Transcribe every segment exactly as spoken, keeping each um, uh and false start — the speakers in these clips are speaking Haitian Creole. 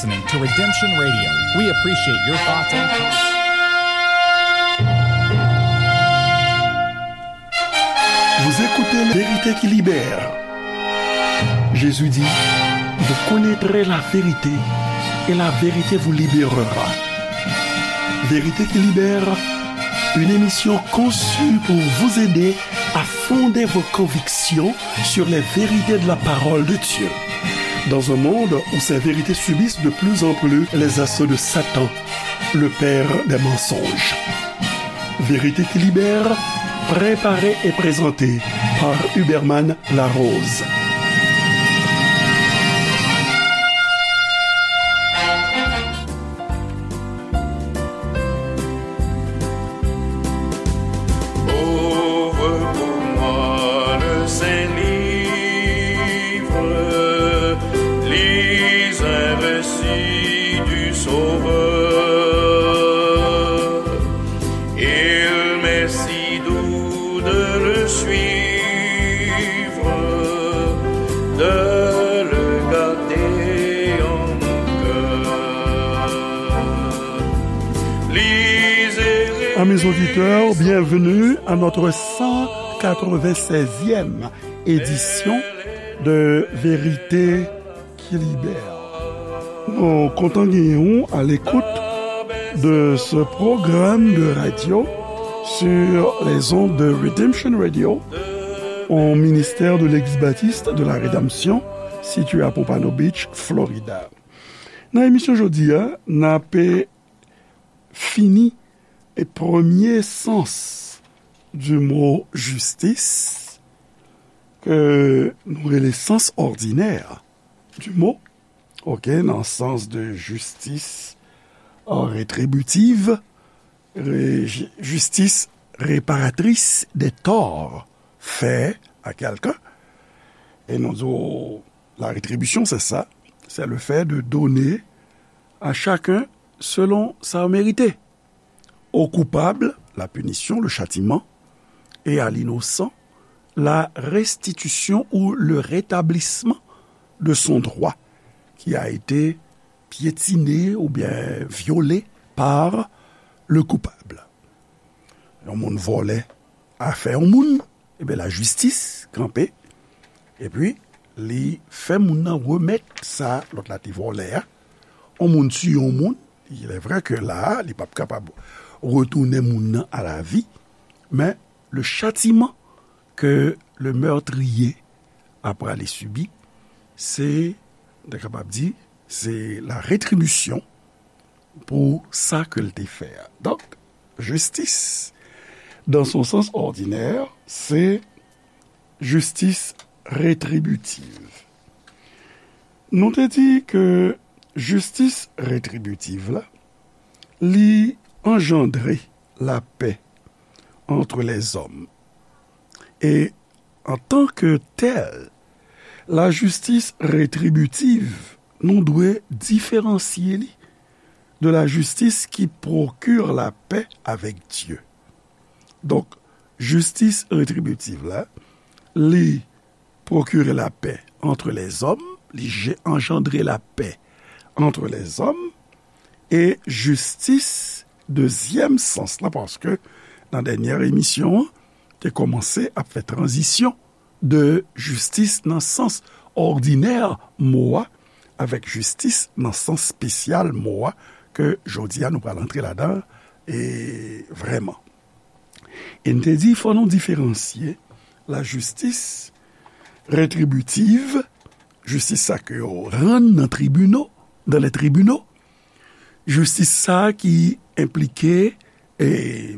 Listening to Redemption Radio. We appreciate your thoughts and comments. Vous écoutez Vérité qui libère. Jésus dit, vous connaîtrez la vérité et la vérité vous libérera. Vérité qui libère, une émission conçue pour vous aider à fonder vos convictions sur les vérités de la parole de Dieu. Dans un monde où ces vérités subissent de plus en plus les assauts de Satan, le père des mensonges. Vérité qui libère, préparée et présentée par Huberman Larose. Ouvre pour moi le Saint Livre, lis un récit du Sauveur. Il m'est si doux de le suivre, de le garder en mon cœur. Lisez. Amis auditeurs, bienvenue à notre cent quatre-vingt-seizième édition de Vérité qui libère. Nou kontan genyen w à l'écoute de ce programme de radio sur les ondes de Redemption Radio, un ministère de l'Église baptiste de la Rédemption situé à Pompano Beach, Florida. Nan emisyon jodi a, n ap fini e premye sans du mot justice, ke nou rele sans ordinaire du mot, ok, nan sans de justice, euh, rétributive, ré-, jistis réparatris de tò fè a kèlken. E nou di w, la rétribution, c'est ça. C'est le fait de donner à chacun selon sa merite. Au coupable, la punition, le châtiment, et à l'innocent, la restitution ou le rétablissement de son droit qui a été piétiné ou bien violé par le coupable. Yon moun vòlè afè yon moun, ebyen, lajistis kanpe, epi li fè moun nan remèt sa lòt la te vòlè a. Yon moun tiye yon moun, il est vrai que la a, li p ap kapab retounen moun nan à la vie, men le châtiment que le meurtrier a prale sibi, se, nou ta kapab di, se la rétribution pou sa ke l te fè a. Donk, justice, dans son sens ordinaire, c'est justice rétributive. Nou te di ke jistis retribitiv la, li anjandre lapè entre les hommes. E antanke tèl, lajistis retribitiv, nou dwe diferansye li de la justice qui procure la paix avec Dieu. Donk, jistis retribitiv la, li procure la paix entre les hommes, li je-, anjandre lapè entre les hommes, e jistis dezyèm sans lan, paske nan dènyè emisyon an, te kòmanse ap fè tranzisyon de jistis nan sans òdinè mo a, avèk jistis nan sans espesyal mo a, ke jodi a nou pral antre ladan, e vrèman. E n te di, fò nou diferansye lajistis retribitiv, jistis sa ke yo rann nan tribino, dans les tribunaux, jistis sa ki enplike, e,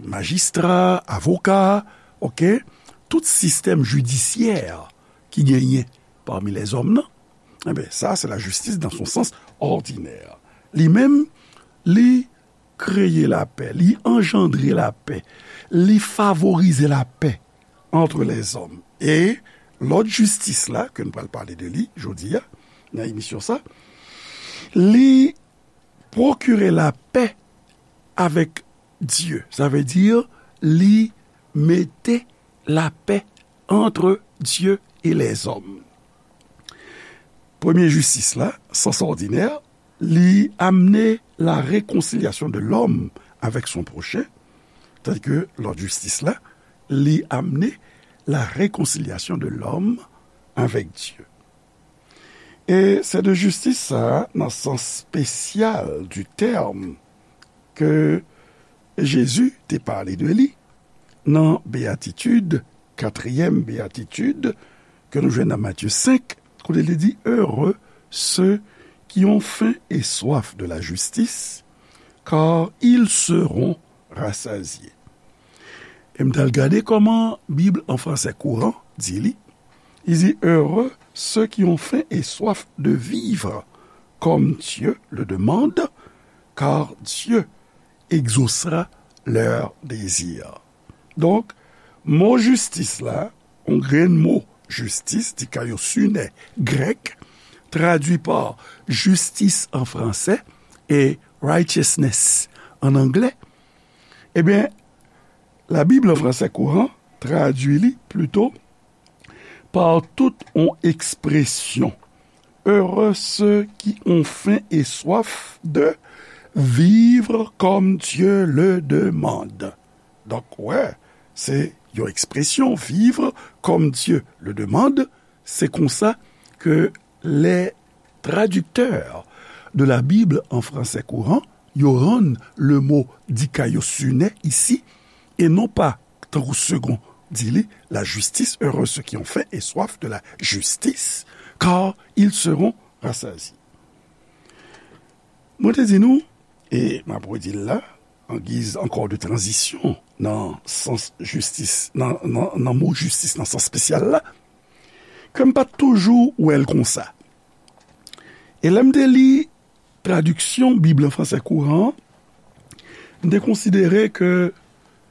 majistra, avoka, ok, tout sistèm jidisyè ki genyen pami lèzòm nan, enben, sa, se lajistis dans son sens ordinaire. Li menm, li kreye lapè, li anjandre lapè, li favorize lapè entre les hommes. E lòt jistis la, ke nou pral pale de li jodi a, nan emisyon sa, li prokire lapè avèk Dye. Sa vle di, li mete lapè entre Dieu et les hommes. Premye jistis la, sans ordinaire, li amene la réconciliation de l'homme avec son prochain, tandis que lòt jistis la, li amene la réconciliation de l'homme avec Dieu. E se de jistis sa a, nan sans spesyal du terme, ke Jezi te pale de li nan beyatitid, katriyèm beyatitid, ke nou jwenn nan Matye senk, kote li di, Heureux ceux qui ont faim et soif de la justice, car ils seront rassasiés. E m t al gade kòman Bib an fransè kouran di li. Li di, Heureux ceux qui ont faim et soif de vivre comme Dieu le demande, car Dieu exaucera leur désir. Donk, mo jistis la, yon grenn mo jistis, dikaiosune grèk, tradui pa jistis an fransè e righteousness an anglè, ebyen, Labib an fransè kouran tradui li plito pa tout yon ekspresyon, Heureux ceux qui ont faim et soif de vivre comme Dieu le demande. Donk, wè, se yon ekspresyon, vivre comme Dieu le demande, se konsa ke les traducteurs de la Bible en français courant, yo rann le mo dikaiosune isi, e non pa, tankou Segond di li, la justice, heureux ceux qui ont faim et soif de la justice, car ils seront rassasiés. Mwen te di nou, e m ap redi l la, an giz ankò de tranzisyon nan sans jistis, nan, nan, nan mo jistis nan sans espesyal la, ke m pa t toujou wè l konsa. E lè m te li tradiksyon Bib an fransè kouran an, m te konsidere ke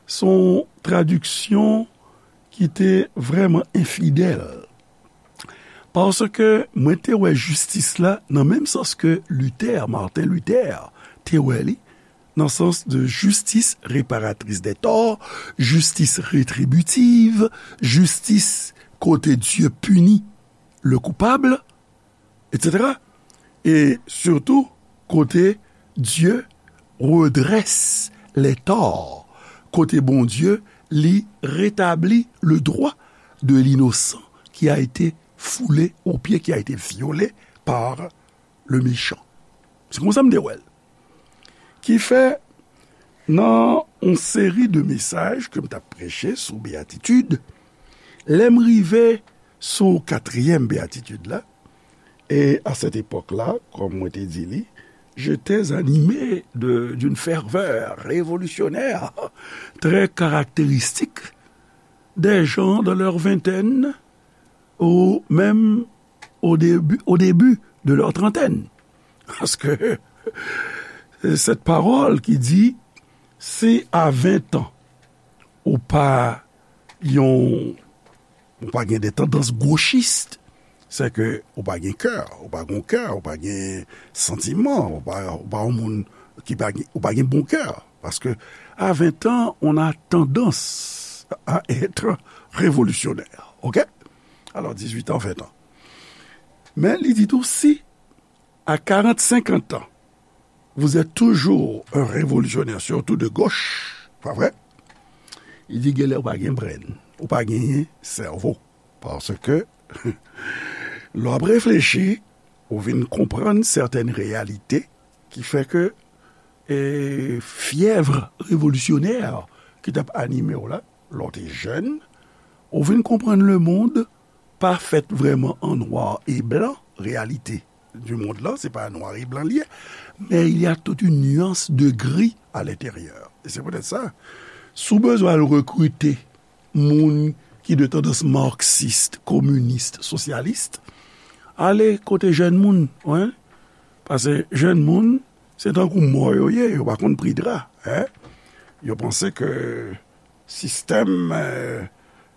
se yon tradiksyon ki te vrèman enfidèl. Paske mwen te wè jistis la nan menm sans ke Luther, Martin Luther, te wè li, nan sans de justice réparatrice des torts, justice rétributive, jistis kote Dye pini le coupable, et cetera. E sitou, kote Dye redresse les torts, kote Bondye li retabli le droit de l'innocent qui a été foulé aux pieds, qui a été violé par le méchant. Se konsa m te wè l. Ki fè, nan yon seri de mesaj ke m t ap preche sou beyatitid, lè m rive sou katriyèm beyatitid la, e a sèt epòk la, kòm mwen te di li, j'étais animé de, d'une ferveur révolutionnaire très caractéristique des gens dans leur vingtaine ou même au début, au début de leur trentaine. Paske cette parole ki di, si a ven an, ou pa yon, ou pa gen de tandans gochis, se ke ou pa gen kè, ou pa gen kè, ou pa gen santiman, ou pa, ou pa yon moun ki pa gen, ou pa gen bon kè. Paske a ven an, on a tendance à être révolutionnaire. OK? Alò, dizuit an, ven an. Men li di tou, si à quarante, cinquante ans, vous êtes toujours un révolutionnaire, surtout de gauche, pa vre? Li di, genlè ou pa gen brenn, ou pa genyen sèvo. Paske, lè w ap reflechi, ou vin konprann sètèn reyalite ki fè ke, e, fyèv revolisyonè ki t ap anime w la, lè w te jèn, ou vin konprann lemonn pa fèt vrèman an nwa e blan, reyalite du monde lan, se pa nwa e blan li ye, men il y a toute une nuance de gris à l'intérieur. E se poutèt sa, si w bezwen al rekrite moun ki de tandans marxiste, communiste, socialiste, ale kote jèn moun, wi. Paske jèn moun, se tankou mò yo ye, yo pa konn pri dra, en. Yo panse ke sistèm, eh,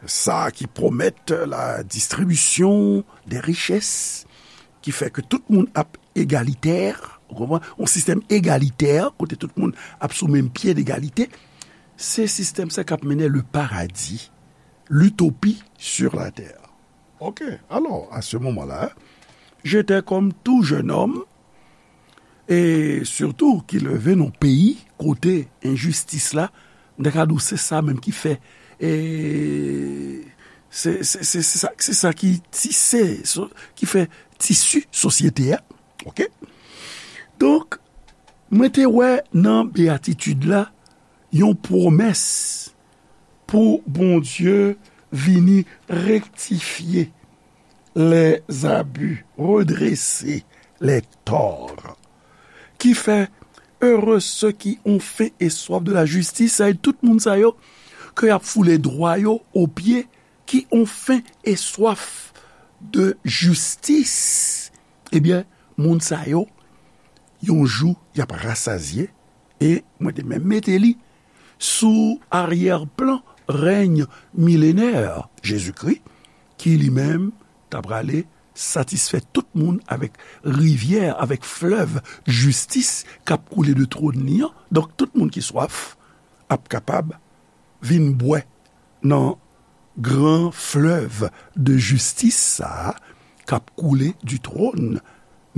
sa ki pwomèt la distribution des richesses, ki fè ke tout moun ap egalitè, ou konprann? Yon sistèm egalitè, kote tout moun ap sou menm pye degalite, se sistèm sa k ap mennen le paradis, l'utopie sur la terre. OK, alors, à ce moment-là, j'étais comme tout jeune homme, E sitou ki leve nan peyi kote enjistis la, m ta ka di w se sa menm ki fè, e, se, se, se, se sa, se sa ki tise, so, ki fè tisi sosyete a. Oke? Donk, mwen te wè nan beyatitid la yon pwomès pou Bondye vini rektifye les abus, redresser les torts. Ki fè, heureux ceux qui ont faim et soif de la justice, sa e tout moun sa yo ke y ap foule dwa yo o pye, qui ont faim et soif de justice. Ebyen, moun sa yo, yon jou, y ap rasazye, e mwen te menm mete li sou aryè plan rèny milenè Jezikri, ki li menm ta prale satisfè tout moun avèk rivyè, avèk flèv jistis k ap koule de twòn li an. Donk, tout moun ki swaf ap kapab vin bwè nan gran flèv de jistis sa a k ap koule du trône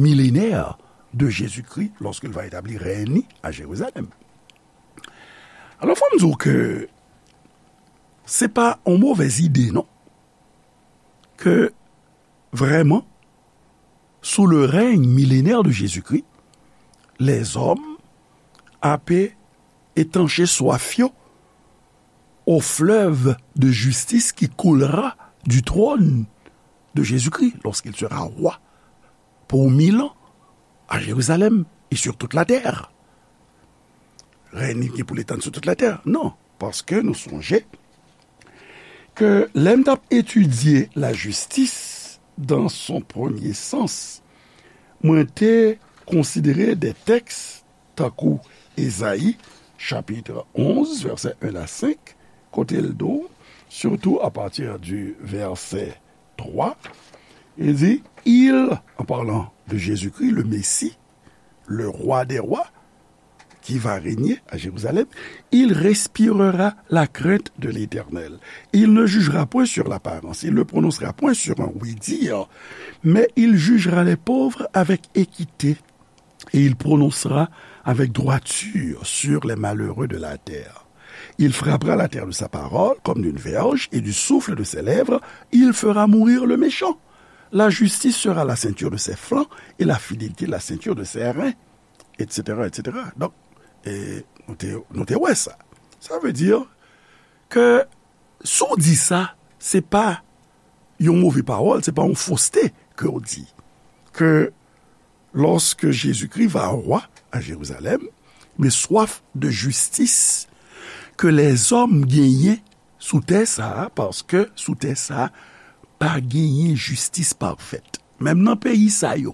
millénaire de Jésus-Christ lorsqu'il va établir règne li à Jérusalem. Alò, fò m di w ke se pa yon movèz ide, non, ke vrèman, sous le règne millénaire de Jésus-Christ, les hommes ape étancher soif yo au fleuve de justice qui coulera du trône de Jésus-Christ lorsqu'il sera roi pour mille ans à Jérusalem et sur toute la terre. Règne li gen pou l etann sou tout latè? Non, paske nou sonje ke lè m t ap etidye lajistis dan son premye sans, mwen te konsidere de tèks tankou Ezayi, chapit onz, vèsè en a senk, kote l di w, surtout à partir du verset trois, il dit, il, en parlant de Jésus-Christ, le Messie, le roi des rois, qui va régner à Jérusalem, il respirera la crainte de l'Éternel. Il ne jugera point sur l'apparence, il ne prononcera point sur un oui-dire, mais il jugera les pauvres avec équité, et il prononcera avec droiture sur les malheureux de la terre. Il frappera la terre de sa parole comme d'une verge, et du souffle de ses lèvres, il fera mourir le méchant. La justice sera la ceinture de ses flancs, et la fidélité la ceinture de ses reins, et cetera, et cetera. Donk, e, nou te, nou te wè sa. Sa vle di ke si w di sa, se pa yon move pawòl, se pa yon foste ke w di. Ke lorsque Jésus-Christ va roi à Jérusalem, mais soif de justice que les hommes genyen sou tè sa a, paske sou tè sa a, pa genyen jistis pafèt. Menm nan peyi sa yo,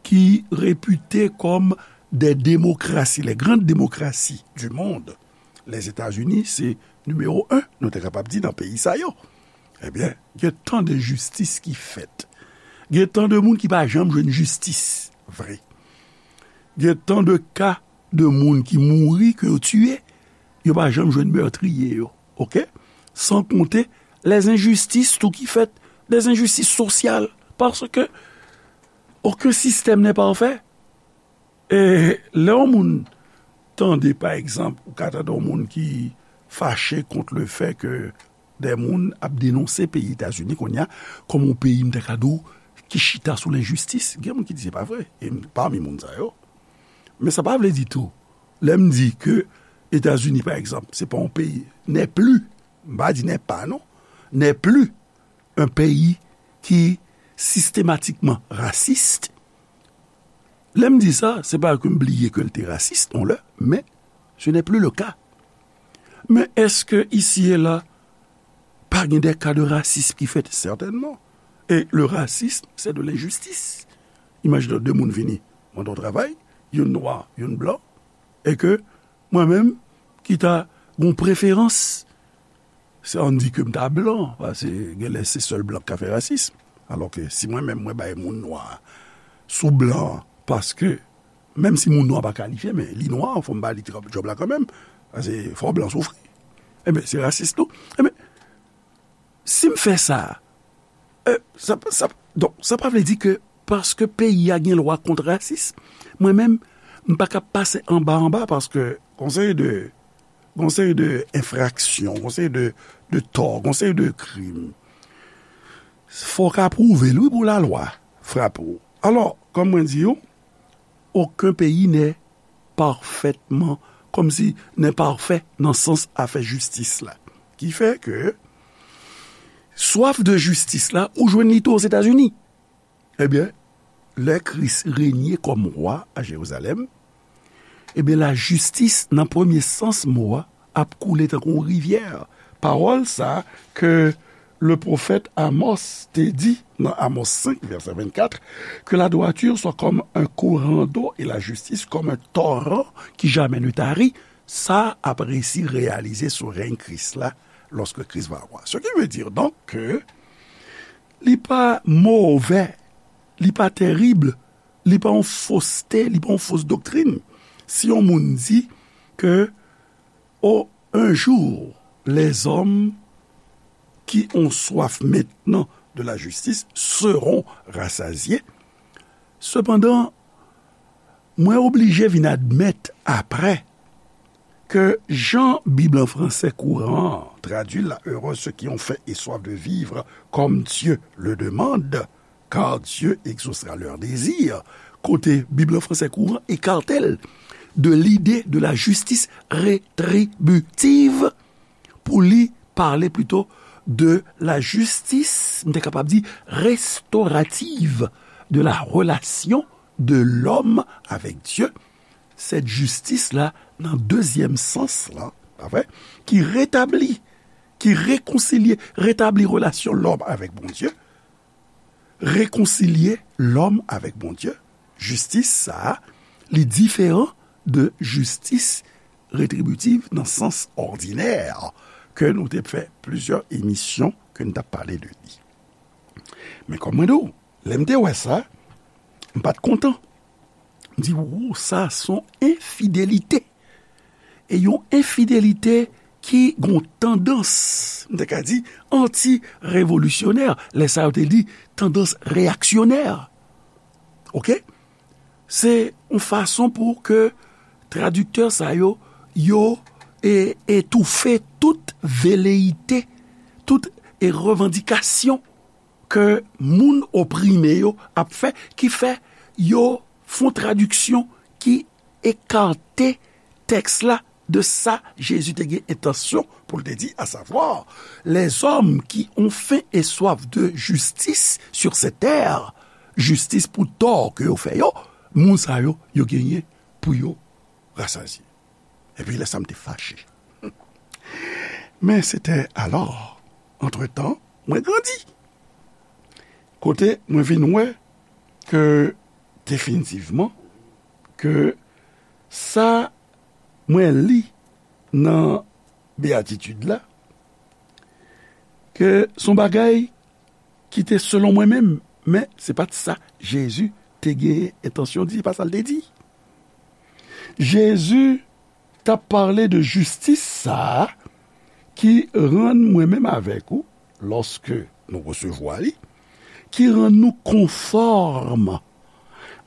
ki repite kòm des démocraties, les grandes démocraties du monde, Lèzetazini se nimewo en, nou te kapab di, nan peyi sa yo. Ebyen, gen tan de jistis ki fèt. Gen tan de moun ki pa janm jwenn jistis vre. Gen tan de ka de moun ki mouri, ke yo tiye, yo pa janm jwenn mètriye yo. Oke? San konte lèzenjistis tou ki fèt, lèzenjistis sosyal. Paske okenn sistèm nè pafè. E lè yon moun tande, pa egzanp, ou ka tande yon moun ki fache kont le fè ke de moun ap denonse peyi Etazini kounye a kòm yon peyi, m ta ka di w, ki chita sou lenjistis. Gen moun ki di se pa vre. E m pami moun sa yo. Men sa pa vle di tou, lè m di ke Etazini, pa egzanp, se pa yon peyi, n'est plus, m pa di n'est pas, non, n'est plus un pays qui systématiquement raciste. Lè m di sa, se pa ke m bliye ke l te rasis, yon lè, men ce n'est plus le cas. Men èske isi e la, pa gen de ka de rasism ki fèt? Sètènman. E le racisme, c'est de l'injustice. Imajine w, de moun vini mande w travay, youn nwa, youn blan, e ke mwen menm, ki ta gon preferans, se ann di ke m ta blan, paske genlè se sèl blan k ka fè rasism. Alòske si mwen menm, mwen bay moun nwa sou blan, paske menm si moun nwa pa kalifye, men li nwa, fò m ba li djòb la kanmenm, paske fò blan soufri. Ebyen, se rasis tou. Ebyen, si m fè sa, e, sa, sa, donk, sa pa vle di ke paske peyi a gen lwa kont rasism, mwen menm, m pa ka pase anba anba paske gon seri de, gon seri de enfraksyon, gon seri de, de tò, gon seri de krim. Fò w ka pwouve l, wi, pou lalwa frape w. Alò, kòm mwen di w, okenn peyi n'est parfaitement, kòmsi n'est parfait nan sans afè jistis la. Ki fè ke swaf de jistis la, ou jwenn li tou Ozetazini. Ebyen, lè Kris renye kòm wa a Jerizalèm, ebyen, lajistis, nan premye sans mo a, ap koule tankou yon rivyè. Pawòl sa ke le pwofèt Amos te di nan Amos senk, vèsè vennkat, que la droiture soit comme un courant d'eau et la justice comme un torrent qui jamais ne tarit, sa ap resi reyalize sou rèy Kris la, lorsque Christ va avoir. Ce qui veut dire donc que li pa movè, li pa tèrib, li pa yon foste, li pa yon fos doktrin. Si yon moun di ke, oh, un jour, les hommes qui ont soif maintenant de la justice seront rassasiés. Sepandan, mwen oblije vin admèt apre ke jan Bib an fransè kouran an tradui l la, heureux ceux qui ont faim et soif de vivre comme Dieu le demande, car Dieu exaucera leur désir. Kote Bib an fransè kouran ekate l de lide de la justice rétributive pou li pale plito de la justice, m te kapab di, restaurative de la relation de l'homme avec Dieu. Sèt jistis la, nan dezyèm sans la, pa vre, ki retabli, ki rekonsilye, retabli relasyon lòm avèk Bondye, rekonsilye lòm avèk Bondye, jistis sa a, li diferan de jistis retribitiv nan sans òdinè ke nou te fè plizyè emisyon ke n t ap pale de li. Men kòm mwen di w, lè m te wè sa, m pa t kontan. M di, "Wo, sa s on enfidelite." E yon enfidelite ki gon tandans, m te ka di, anti-revolisyonè. Lè sa yo te di tandans reyaksyonè. Oke? Se yon fason pou ke tradiktè sa yo, yo e, etoufe tout veleyite, tout e revandikasyon ke moun oprime yo ap fè, ki fè yo fè yon tradiksyon ki ekate tèks la de sa Jezi te gen entansyon pou l te di, à savoir, les hommes qui ont faim et soif de justice sur cette terre, jistis pou tò ke yo fè yo, moun sa yo, yo genyen pou yo rasazye. Epi lè sa m te fache. Men se te alò, antretan, mwen grandi. Kote mwen vin wè ke definitivman, ke sa mwen li nan beyatitid la, ke s on bagay ki te selon mwen menm, men se pa t sa Jezi te gen entansyon di, se pa sa l te di. Jezi t ap pale de jistis sa a ki rann mwen menm avèk ou, lòske nou resevwa li, ki rann nou konfòm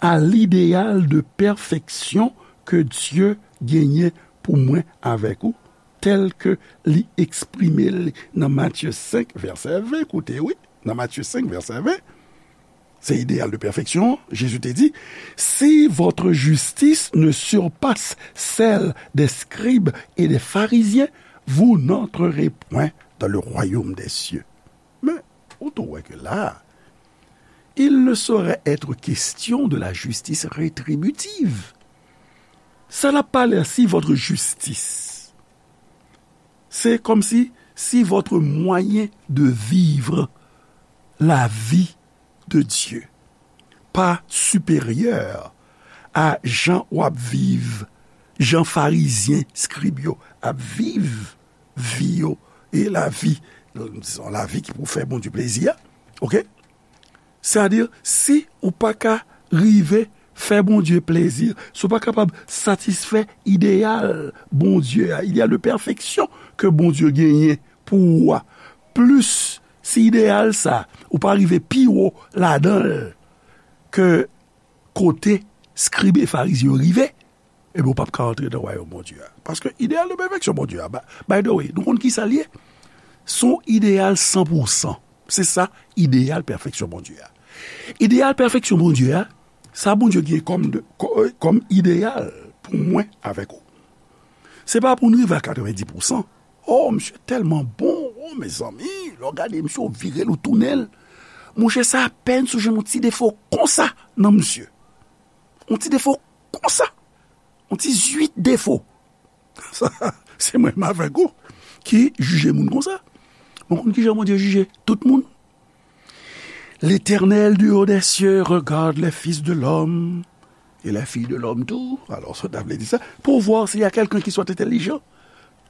a lideyal de pèfeksyon ke Dye genyen pou mwen avèk ou, tèl ke li eksprime l nan Matye senk, vèsè ven. Koute, wi, nan Matye senk, vèsè ven, se ideyal de pèfeksyon, Jezi te di, "Si votre justice ne surpasse celle des scribes et des pharisiens, vous n'entrerez point dans le royaume des cieux." Men, ou tou wè ke la, il ne saurait être question de la justice rétributive. Sa l ap pale a, si votre justice, se kòmsi, si votre moyen de vivre la vie de Dieu pa siperyè a jan w ap viv, jan farizyen, skrib yo ap viv vi yo, e lavi, dizon, lavi ki pou fè Bondye plezi a, oke? Sètadi, si ou pa ka rive fè Bondye plezi, si w pa kapab satisfè ideyal Bondye a, ideyal de pèfeksyon ke Bondye genyen pou ou a, plis si ideyal sa, ou pa rive pi wo ladan l ke kote Skrib e Farizyen yo rive, ebyen, ou p ap ka antre nan wayòm Bondye a. Paske ideyal de pèfeksyon Bondye a, ba- by the way, nou konn ki sa l ye? Se yon ideyal san pou san. Se sa, ideyal pèfeksyon Bondye a. Ideyal pèfeksyon Bondye a, sa Bondye gen kòm, de, kò- kòm ideyal pou mwen avèk ou. Se pa pou n rive a katrevendi pou san. Oh, misye tèlman bon. Oh, mezanmi, lè w gade misye, w vire l, w tounen l. Monchè, sa apèn si w jwenn yon ti defo konsa nan misye. Yon ti defo konsa. Yon ti zwit defo. Sa, se mwen menm avèk ou ki jije moun konsa. Mwen konn kijan Bondye jije tout moun. L'Éternel du haut des cieux regarde les fils de l'homme et les filles de l'homme tout. Alors, sa ta vle di sa, pour voir s'il y a quelqu'un qui soit intelligent.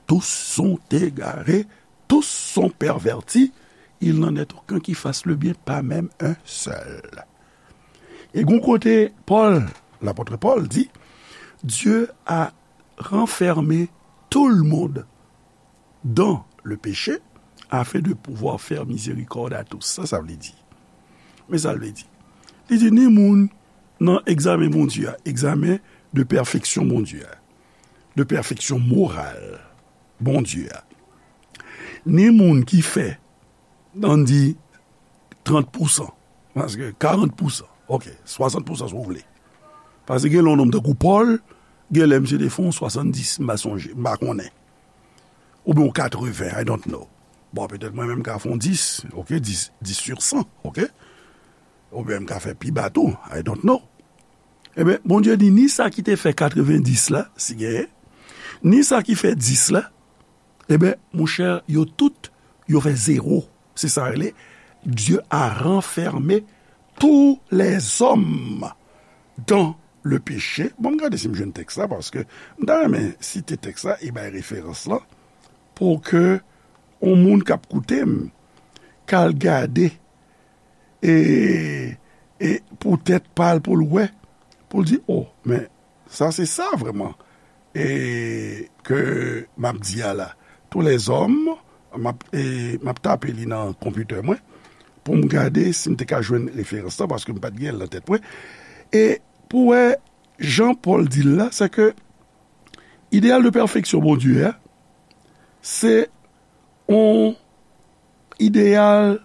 Tous sont égarés, tous sont pervertis. Il n'en est aucun qui fasse le bien, pas même un seul. E gon kote Pòl, lapòt Pòl di, Dieu a renfermé tout le monde dans le péché, afin de pouvoir faire miséricorde à tous. Sa sa vle di? Men sa l vle di. Li di ni moun nan egzamen Bondye a, egzamen de pèfeksyon Bondye a, de pèfeksyon moral Bondye a. Ni moun ki fè, ann di, trant pou san, paske karant pou san, ok, swasant pou san si w vle. Paske gen lè yon nonm tankou Pòl, gen lè misye te fè yon swasanndis, m pa sonje, m pa konnen. Oubyen yon katreven, I don't know. Bon, petèt mwen menm m ka fè yon dis, ok, dis, dis sur san, ok? Oubyen m ka fè pi ba tou, I don't know. Ebyen, Bondye di ni sa ki te fè katrevendis la, si genyen, ni sa ki fè dis la, ebyen, monchè, yo tout, yo fè zewo. Se sa rele, Dieu a renfermé tous les hommes dans le péché. Bon, m gade si m jwenn tèks la, paske m ta renmen site tèks la e bay referans lan, pou ke yon moun k ap koute m, k al gade, e, e pou tèt pa l, pou l wè, pou l di, oh, men sa se sa vrèman, e ke m ap di a la. Tous les hommes, m ap, e, m ap tape li nan konpitè mwen, pou m gade si m te ka jwenn referans lan, paske m pa t gen l nan tèt mwen. E pou wè jan Pòl di l la, se ke ideyal de pèfeksyon Bondye a, se yon ideyal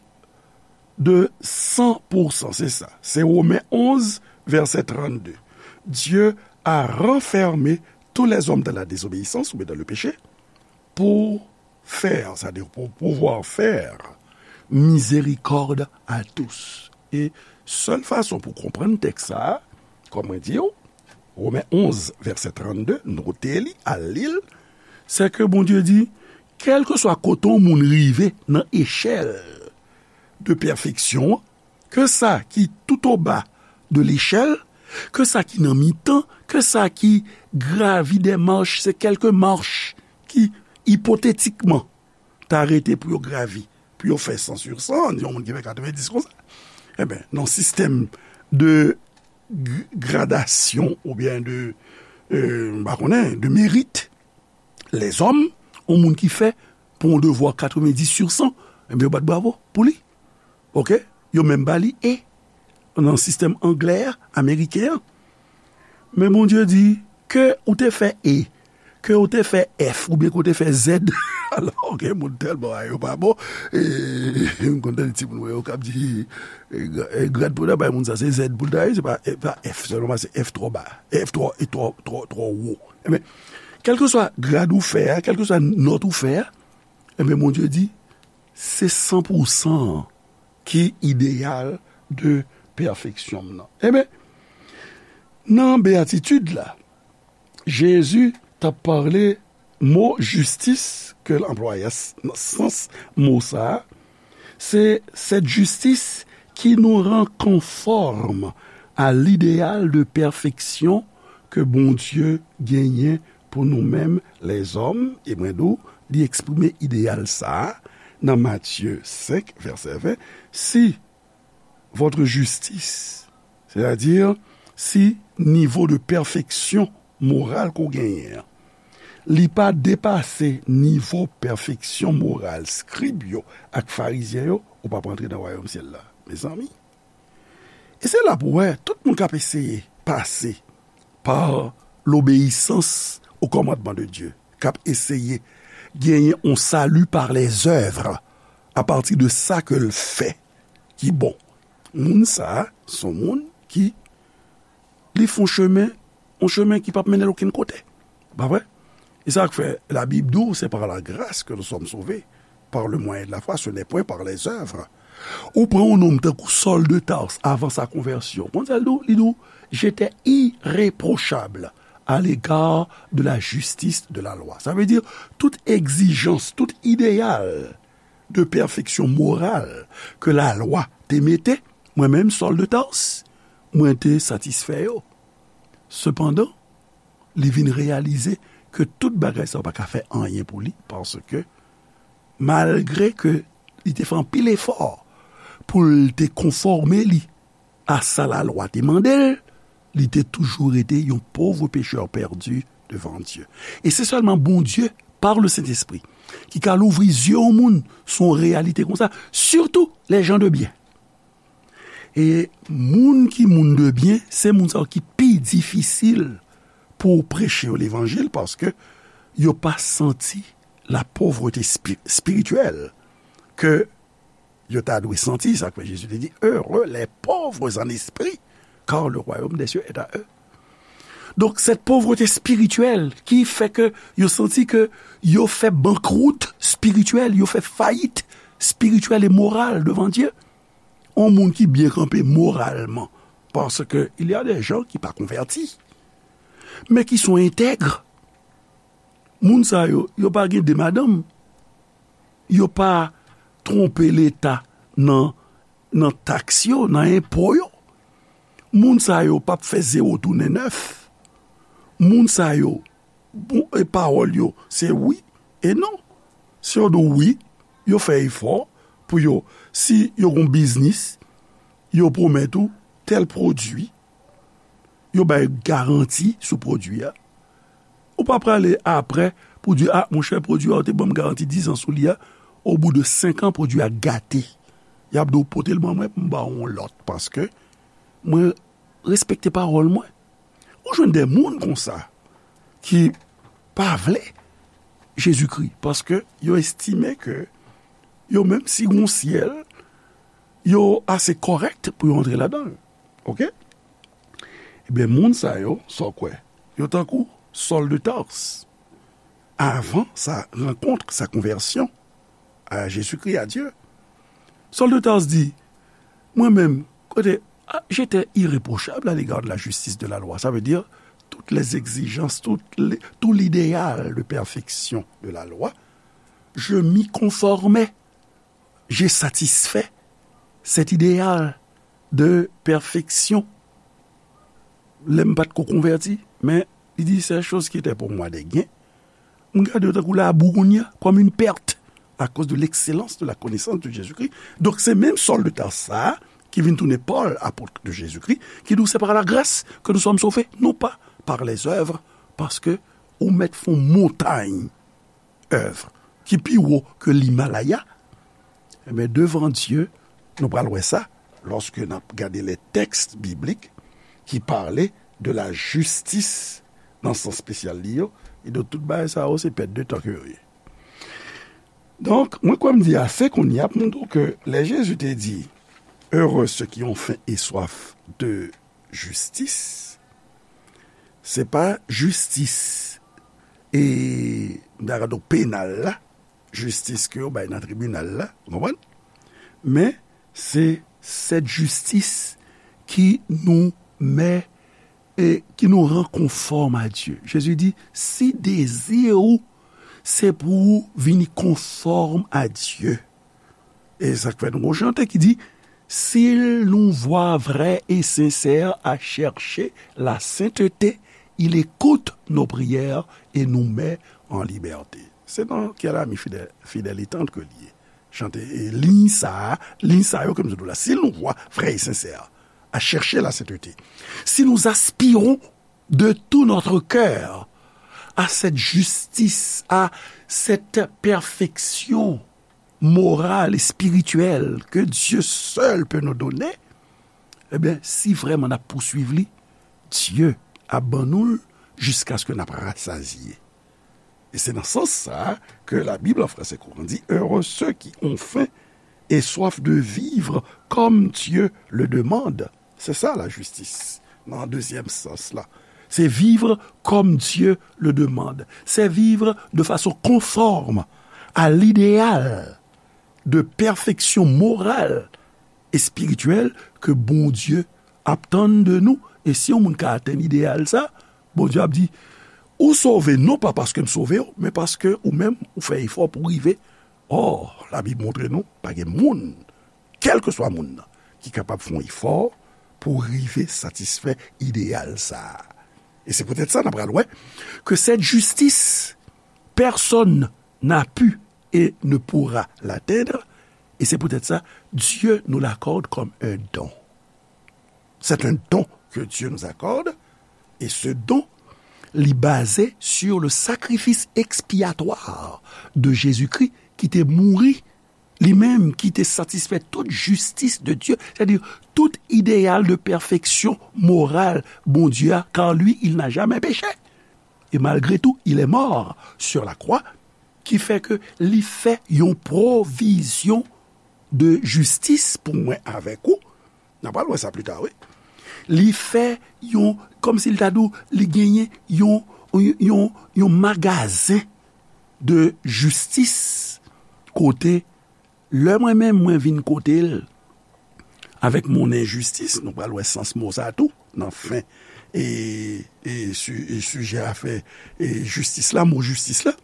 de san pou san, se sa. Se Women onz, vèsè trannde. Dieu a renfermé tous les hommes dans la désobéissance, oubyen dans le péché, pour faire, c'est-à-dire pour pouvoir faire miséricorde à tous. E sèl fason pou konprann tèks sa a, kòm mwen di w, Women onz, vèsè trannde, note li, al li l, se ke Bondye di, kèlkeswa kote yon moun rive nan echèl de pèfeksyon an, ke sa ki tout o ba de lechèl, ke sa ki nan mitan, ke sa ki gravi dè mach, se kèlke mach ki ipotetikman ta rete pou yo gravi, pou yo fè san sur san, yon moun ki fè katrevendis konsa. Ebyen, nan sistèm de g-, gradasyon oubyen de, euh, m pa konnen, de merit, lèzòm, yon moun ki fè pou yon devwa katrevendis sur san, ebyen, yo bat bravo pou li. Ok? Yo menm ba li E nan sistèm anglè a, ameriken an. Men Bondye di, ke ou te fè E, ke ou te fè F, oubyen ke ou te fè Z. Alò, gen moun tèlman a yo pa bon. E, m konn tande timoun mwen yo k ap di, e, gra-, e, grad pou ta bay moun sa, se Z pou l ta ye, se pa, e, pa F sèlman, se F twò ba, F twò, e twò, twò, twò wo. Ebyen, kèlkeswa grad ou fè a, kèlkeswa nòt ou fè a, ebyen, Bondye di, se san pou san an ki ideyal de pèfeksyon m nan. Ebyen, nan beyatitid la, Jezi t ap pale mo jistis ke l anplwaye a, s-, nan sans mo sa a, se cette justice qui nous rend conformes à l'idéal de perfection ke Bondye genyen pou nou menm lèzòm, e mwen di w, li eksprime ideyal sa a nan Matye senk, vèsè ven, si votre justice, c'est-à-dire si nivo de pèfeksyon moral ke w genyen an, li pa depase nivo pèfeksyon moral skrib yo ak farizyen yo, ou p ap rantre nan wayòm syèl la, mezanmi. E se la pou w wè, tout moun k ap eseye pase par l'obéissance au commandement de Dieu, k ap eseye genyen yon salut par les œuvres, à partir de sa ke l fè ki bon. Moun sa a, se yon moun ki li fè yon chemen, yon chemen ki p ap mennen l okenn kote. Pa vre? E sa k fè Labib di w, c'est par la grâce que nous sommes sauvés, par le moyen de la foi, ce n'est point par les œuvres. Ou pran yon nonm tankou Saul de Tarse avan sa konvèsyon. Konn sa l di w? Li di w, j'étais irréprochable à l'égard de la justice de la loi. Sa vle di, tout egzijans, tout ideyal de pèfeksyon moral ke lalwa te mete, mwen menm, Saul de Tarse, mwen te satisfè yo. Sepandan, li vin reyalize ke tout bagay sa yo pa ka fè anyen pou li, paske malgre ke li te fè anpil efò pou l te konfòme li a sa lalwa te mande l, li te toujou rete yon pòv pechè pèdi devan Dye. E se sèlman Bondye, par le Sentespri, ki ka louvri zye yon moun sou yon reyalite konsa, surtout les gens de bien. E moun ki moun de byen, se moun sa yo ki pi difisil pou w preche yo levanjil, paske yo pa santi la pauvreté spi-, spirituelle ke yo ta dwe santi. Sa k fè Jezi te di, heureux les pauvres en esprit, car le royaume des cieux est à eux. Donk, cette pauvreté spirituelle ki fè ke yo santi ke yo fè bankrout spirityèl, yo fè fayit spirityèl e moral devan Dye. Yon moun ki byen kanpe moralman, paske il y a des gens ki pa konvèti, men ki sont intègres. Moun sa yo, yo pa gen de madanm, yo pa twonpe Leta nan, nan taks yo, nan enpo yo. Moun sa yo p ap fè zewo tounen nèf. Moun sa yo, bon, e pawòl yo, se wi e non. Si yo di w wi, yo fè efò pou yo, si yo gon biznis, yo pwomèt ou tèl pwodui, yo bay garanti sou pwodui a. Ou pa prale apre pou di, a, monchè, pwodui a, ou te ban m garanti dizan sou li a, au bout de senk an, pwodui a gate. Y ap di w pote l ban mwen pou m ba w yon lòt, paske mwen respekte pawòl mwen. Ou jwenn de moun konsa ki pa vle Jezikri, paske yo estime ke yo menm, si gon syèl, yo ase kòrèk pou yo antre ladan l. Oke? Ebyen, moun sa yo, sa w kwè? Yo tankou Saul de Tarse. Avan sa rankont, sa konvèsyon a Jezikri, a Dye, Saul de Tarse di, mwen menm, kote, ah, j'étais irréprochable à l'égard de la justice de la loi. Ça veut dire, toutes les exigences, tout, les, tout l'idéal de perfection de la loi, je m'y conformais. J'ai satisfait cet idéal de perfection. Lè m pa t ko konvèti, men li di, ces choses qui étaient pour moi des gains, m gade yo tankou labou kounye a, comme une perte, à cause de l'excellence de la connaissance de Jésus-Christ. Donk, se menm Saul de Tarse sa a, ki vin tounen Paul, apôtre de Jésus-Christ, ki di w, c'est par la grâce que nous sommes sauvés, non pas par les œuvres, paske ou mèt fè yon montay èv ki pi wo ke l'Himalaya, ebyen, devan Dye, nou pral wè sa, lòske n ap gade les textes bibliques qui parlent de la justice nan sans espesyal li yo, e donk tout bagay sa yo, se pèt de tan ke yo ye. Donk, mwen kwè m di ase kounye a pou m di w ke lè Jezi te di, heureux ceux qui ont faim et soif de justice, se pa jistis, e, m ta ka di w penal la, jistis ke yo bay nan tribinal la, ou konprann? Men, se cette justice qui nous met et qui nous rend conforme à Dieu. Jezi di, si dezi ou se pou ou vini konfòm a Dye, e sa k fè nou gon chante ki di, s'il nous voit vrais et sincères à chercher la sainteté, il écoute nos prières et nous met en liberté. Se nan Quel ami fidèle, fidèle et tendre ke li ye. Chante, e, liy sa a, liy sa yo ke m sot la. S'il nous voit vrais et sincères à chercher la sainteté, si nous aspirons de tout notre cœur à cette justice, à cette perfection morale et spirituelle que Dieu seul peut nous donner, ebyen, si vrèman n ap pouswiv li, Dye ap ban nou l jiskaske n ap rasazye. E se nan sans sa a ke la Bible en français courant dit, heureux ceux qui ont faim et soif de vivre comme Dieu le demande. Se sa lajistis, nan dezyèm sans la. Se vivre comme Dieu le demande. Se vivre de façon conforme à l'idéal de perfection morale espirityèl ke Bondye ap tann de nou. E si yon moun ka atenn ideyal sa, Bondye ap di, ou sove non pa paske m sove w, men paske ou menm ou fè efò pou w rive. Ò, Labib montre nou, pa gen moun, kèlkeswa moun nan, ki kapab fè yon efò pou rive satisfè ideyal sa a. E se poutèt sa n ap pral wè ke cette justice, personne n'a pu et ne pourra l'atteindre, et c'est peut-être ça, Dieu nous l'accorde comme un don. C'est un don que Dieu nous accorde, et ce don, li baze sur le sacrifice expiatoire de Jésus-Christ ki te mouri, li menm ki te satisfè tout jistis de Dieu, c'est-à-dire tout idéal de perfection morale Bondye a, car lui, il n'a jamais péché. Et malgré tout, il est mort sur la croix, ki fè ke li fè yon pwovizyon de jistis pou mwen avèk ou. N a pral wè sa pli ta, wi. Li fè yon, kòmsi l ta di w, li genyen yon, yon, yon, yon magazen de jistis kote lè mwen menm mwen vin kote l avèk mon enjistis, nou pral wè sans mo sa tou nan fen e, e, su- e sijè afè e jistis la, mo jistis la.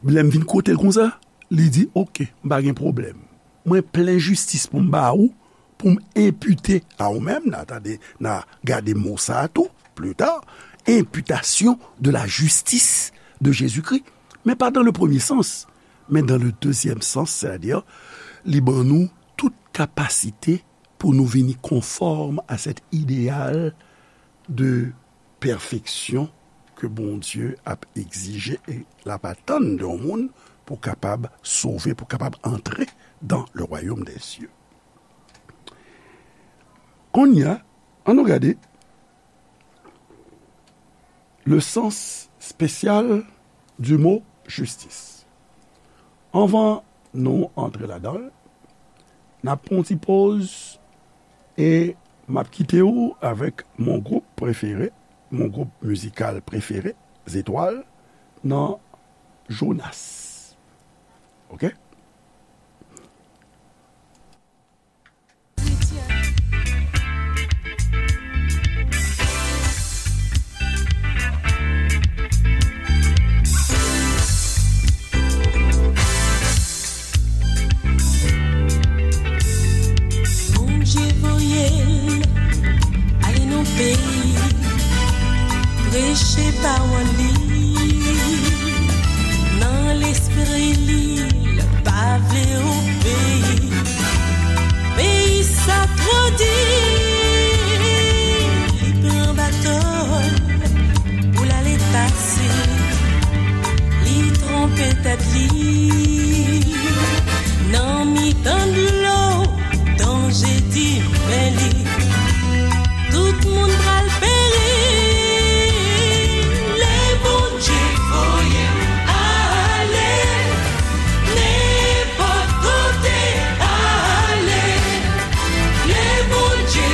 Lè m vin kote l konsa, li di, oke, m pa gen pwoblèm. Mwen plen jistis pou m ba ou, pou m enpite a ou menm, n a tande, n a gade mo sa a tou, pli ta, imputation de la justice de Jésus-Christ. Men pa dans le premier sens, men dans le deuxième sens, c'est-à-dire, li ban nou tout kapasite pou nou vini konfòm a cet idéal de perfection ke Bondye ap egzije e l ap atann de yon moun pou kapab sove, pou kapab antre dans le royaume des cieux. Kounye a, ann nou gade le sens spécial du mot justice. Anvan nou antre ladan l, n ap pran yon ti poz e m ap kite w avèk mon group prefere, mon group mizikal prefere, Zetwal, nan Jonas. Oke? Bondye voye l ale nan peyi, preche pawòl li. Nan lespri li, l pa vle obeyi. Peyi sa twò di, li pran bato l pou l ale pase. Li twonpe tèt li nan mitan dlo, danje di men li. Tout moun pral peri. Lè Bondye voye m ale, nenpòt kote ale. Lè Bondye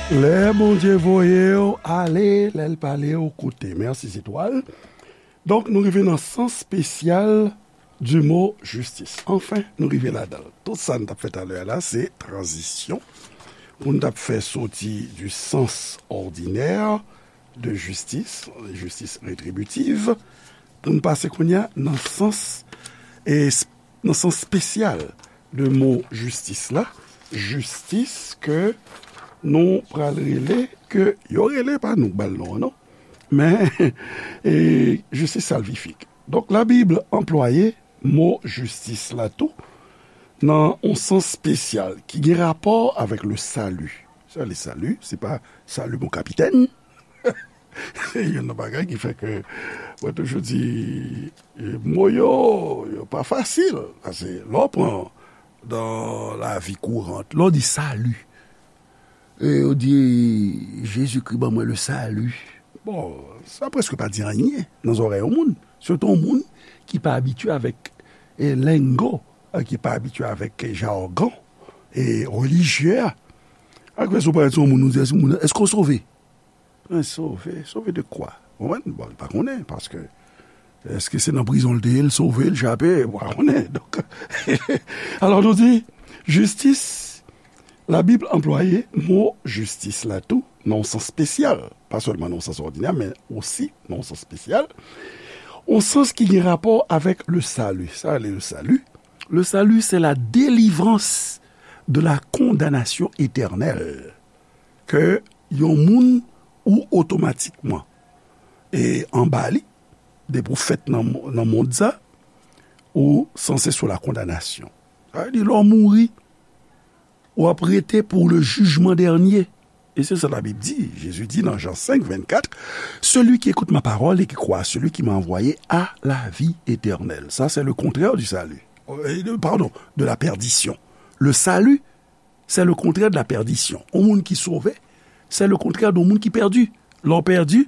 Lè Bondye voye w ale, lè l pale w koute. Mèsi, Zetwal. Donk, nou rive nan sans spesyal du mot justice. Anfen, nou rive ladan l. Tout sa n t ap fè talè a la, se tranzisyon. Pou n t ap fè soti du sens ordinaire de justice, justice rétributive, pou n pase kounye a nan sans, e, nan sans spesyal de mo jistis la, jistis ke nou pral rele, ke yo rele, pa nou k ba l non an, non, men, e, jistis salvifik. Donk, Labib anplwaye mo jistis la tou nan yon sans spesyal ki gen rapò avèk le salut. Sa, le salut, se pa salut mon capitaine. Se youn nan bagay ki fè ke mwen toujou di, e, mo yo, yo pa fasil. Paske lè w pran dan lavi kourant, lè w di salut, e yo di, Jezikri ban mwen le salut. Bon, sa prèske pa di anyen nan zòrèy yon moun. Sitou yon moun ki pa abitye avèk, e, lengo, e, ki pa abitye avèk jagon, e, relijye a. Ak fè sou parèt sou yon moun, nou di, èske moun, èske w sove? Men sove, sove de kwa? Ou konprann? Bon, li pa konnen, paske èske se nan prizon l te ye, l sove, l chape? Ou pa konnen. Donk, alò nou di, jistis, Labib anplwaye mo jistis la tou nan yon sans spesyal, pa sèlman nan yon sans òdinè, men osi nan yon sans spesyal, yon sans ki gen rapò avèk le salut. Sa rele le salut. Le salut, c'est la délivrance de la condamnation éternelle. Ke yon moun ou otomatikman, e, anba li, depi w fèt nan, nan mond sa, ou sanse sou la kondanasyon. Sa vle di, lè w mouri, w ap rete pour le jugement dernier. E se sa Labib di. Jezi di nan Jan senk, vennkat, celui qui écoute ma parole et qui croit à celui qui m'a envoyé a la vie éternelle. Ça, c'est le contraire du salut. Euh, pardon, de la perdition. Le salut, c'est le contraire de la perdition. Yon moun ki sove, c'est le contraire de yon moun ki pèdi. Lè w pèdi,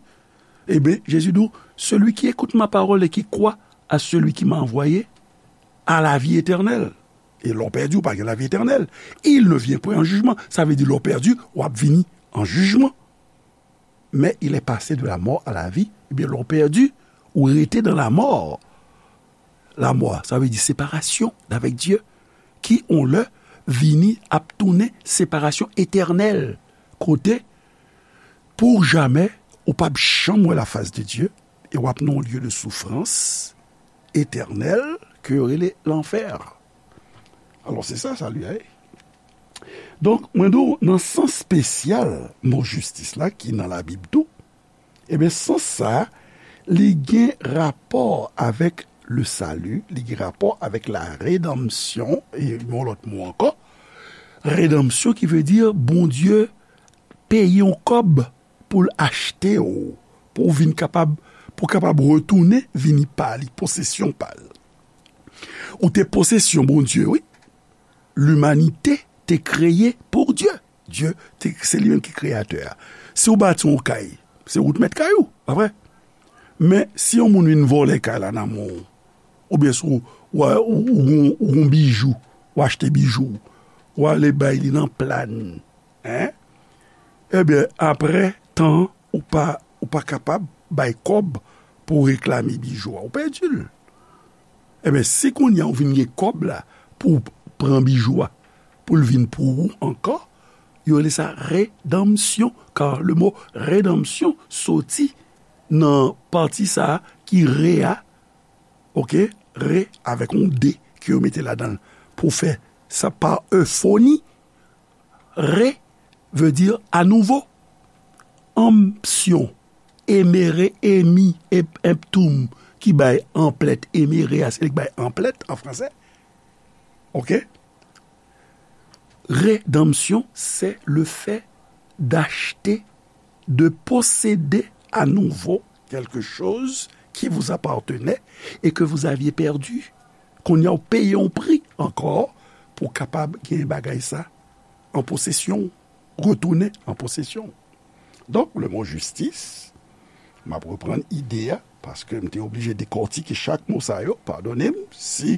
e ben, Jezi di w, celui qui écoute ma parole et qui croit à celui qui m'a envoyé a la vie éternelle. E lè w pèdi, ou pa gen lavi etènèl. Il ne vient point en jugement. Sa vle di, lè w pèdi, w ap vini an jijman. Mais il est passé de la mort à la vie. Ebyen, lè w pèdi, ou rete dans la mort. La mort, sa vle di séparation d'avec Dieu. Ki, yon lè, vini ap tounen séparation éternelle. Kote, pour jamais, ou p ap janm wè la face de Dieu, e w ap nan yon lye de soufrans etènèl ke yo rele lanfè. Alò, se sa, salut a ye. Donk, mwen di w, nan sans spesyal mo jistis la, ki nan Labib tou, ebyen, sans sa a, li gen rapò avèk le salut, li gen rapò avèk la rédemption, e yon lòt mo ankò, rédemption ki vle di Bondye peye yon kòb pou l achte w, pou w vin kapab, pou w kapab retounen vini pa li, posesyon pa l. Ou te posesyon Bondye, wi. Limanite te kreye pou Dye. Dye, te, se li menm ki kreyatè a. Si w bati yon kay, se ou t mèt kay ou, pa vre? Men, si yon moun vin vòlè kay la nan men w, oubyen si w, w, ou, ou, ou gon bijou, w achte bijou, w ale bay li nan plàn, en? Ebyen, apre tan, ou pa, ou pa kapab bay kòb pou w reklame bijou a, ou pèdi l. Ebyen, si kounye a ou vin gen kòb la pou w pran bijou a, pou l vin pou ou ankò, yo rele sa redanmsyon, car le mot rédemption soti nan pati sa a ki re a, oke, re avèk yon de ke yo mete ladan l pou fè sa pa euphoni, re vle di anouvo. Anpsyon, emere, emi, ep-, emptum, ki bay anplèt, emere a, se li k bay anplèt an fransè. Oke? Rédemption, c'est le fait d'acheter, de posséder à nouveau quelque chose qui vous appartenait et que vous aviez perdu. Kounye a w peye yon pri ankò pou w kapab gen bagay sa an posesyon w, retounen an posesyon w. Donk, le mo jistis, m ap reprann ide a, paske m te oblije dekòtike chak mo sa yo, padone m si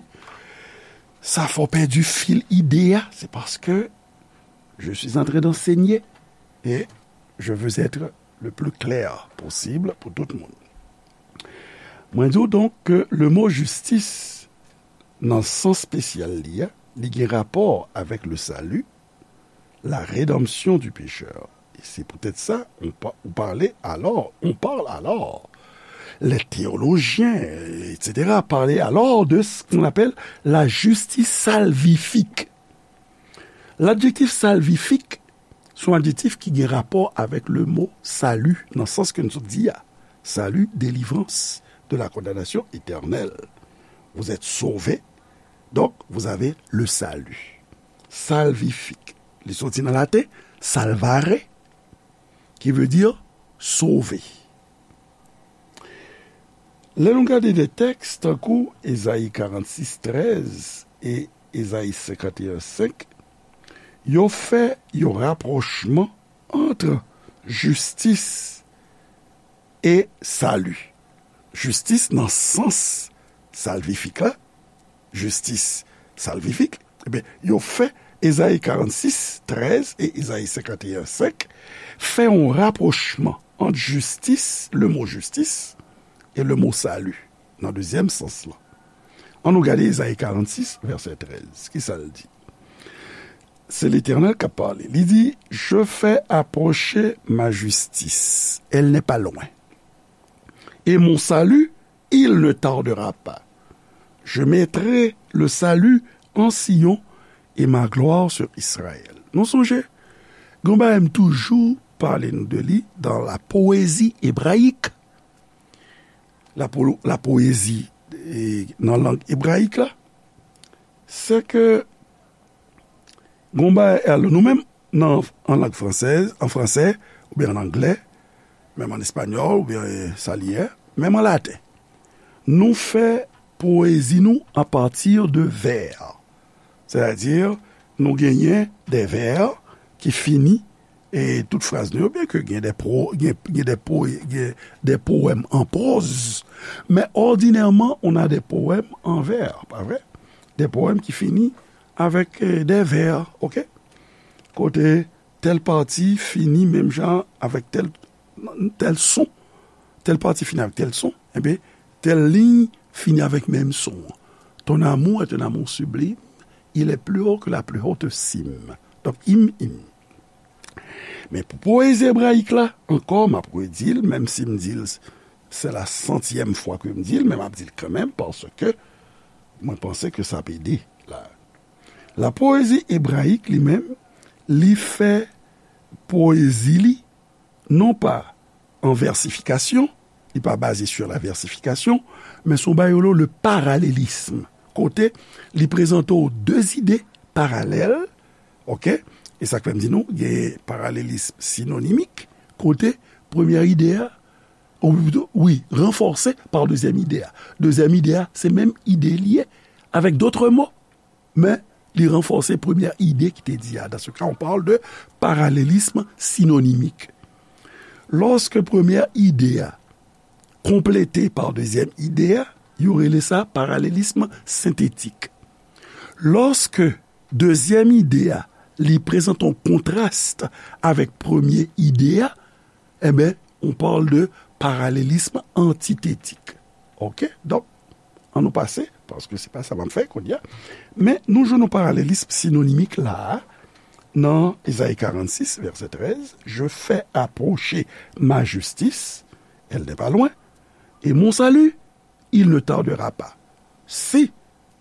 sa fè w pèdi fil ide a, se paske je suis en train d'enseigner. Et je veux être le plus clair possible pou tout moun. Mwen di w donk ke le mo jistis, nan sans spesyal li a, li gen rapò avèk le salut, la rédemption du pécheur. Et c'est peut-être ça, on, pa- on parlait alors, on parle alors, les théologiens, et cetera, parlaient alors de ce qu'on appelle la justice salvifique. L'adjectif salvifique, se yon adjektif ki gen rapò avèk le mo salut, nan sans ke nou sot di a. Salut, délivrance de la condamnation éternelle. Vous êtes sauvé, donc vous avez le salut. Salvifique. Li soti nan laten, salvare, qui veut dire sauver. Lè nou gade de tèks tankou Ezayi karannsis trèz e Ezayi senkanteyen senk, yo fè yon rapwochman ant jistis e sali. Jistis nan sans salvifik la, jistis salvifik, ebyen, yo fè Ezayi karannsis trèz e Ezayi senkanteyen senk fè yon rapwochman ant jistis, le mo jistis, e le mo salut, nan dezyèm sans lan. Ann nou gade Ezayi karannsis, vèsè trèz. Kisa l di? Se Letènèl k ap pale. Li di, Je fais approcher ma justice, elle n'est pas loin. Et mon salut, il ne tardera pas. Je mettrai le salut en Sion et ma gloire sur Israël. Nou sonje, gen yon bagay m toujou pale nou de li dans la poésie hébraïque. La, po- la poésie eh, nan lang ebrayik la, se ke gen yon bagay, alò, nou menm, nan, an lang fransèz, an fransè, oubyen an anglè, menm an espanyòl, oubyen eh, sa li ye, menm an laten, nou fè poezi nou apati de vè. Sètadi, nou genyen de vè ki fini e tout fraz nou yo, byen ke gen de, pro, gen, gen de, po, gen de powèm an pwoz, men òdinèman, on a de powèm an vè, pa vre? De powèm ki fini avèk eh, de vè, oke? Kote tèl pati fini menm jan avèk tèl, tèl son, tèl pati fini avèk tèl son, enben, tèl liy fini avèk menm son an. Ton amour est un amour sublime, il est plus haut que la plus haute cime. Donk, im, im. Men pou poezi ebrayik la, ankò, m ap redi l, menm si m di l, se la santyèm fwa ke m di l, men m ap di l kanmenm, paske mwen panse ke sa ap ede la. La poésie hébraïque, li menm, li fè poezi li, non pa an vèsifikasyon, li pa baze sur la versification, men se yon bagay yo rele le parallélisme. Kote li prezante w de ide paralèl, oke? E sa k fè m di nou, gen paralelism sinonimik, kote premyè ide a, ou pito, wi, ranfòse pa dezyèm ide a. Dezyèm ide a, se menm ide li ye, avec d'autres mots. Men, li ranfòse premyè ide ki te di a. Dans ce cas, on parle de parallélisme synonymique. Lòske premyè ide a konplete pa dezyèm ide a, yo rele sa parallelisme synthétique. Lòske dezyèm ide a, li prezante yon kontras avèk premye ide a, enben, on parle de parallelisme antithétique. Oke? Donk, ann nou pase, paske se pa sa m ap fè kounye a. Men, nou jwenn yon parallelisme sinonimik la a, nan Ezayi karannsis, vèsè trèz, Je fais approcher ma justice, elle n'est pas loin, et mon salut, il ne tardera pas. Si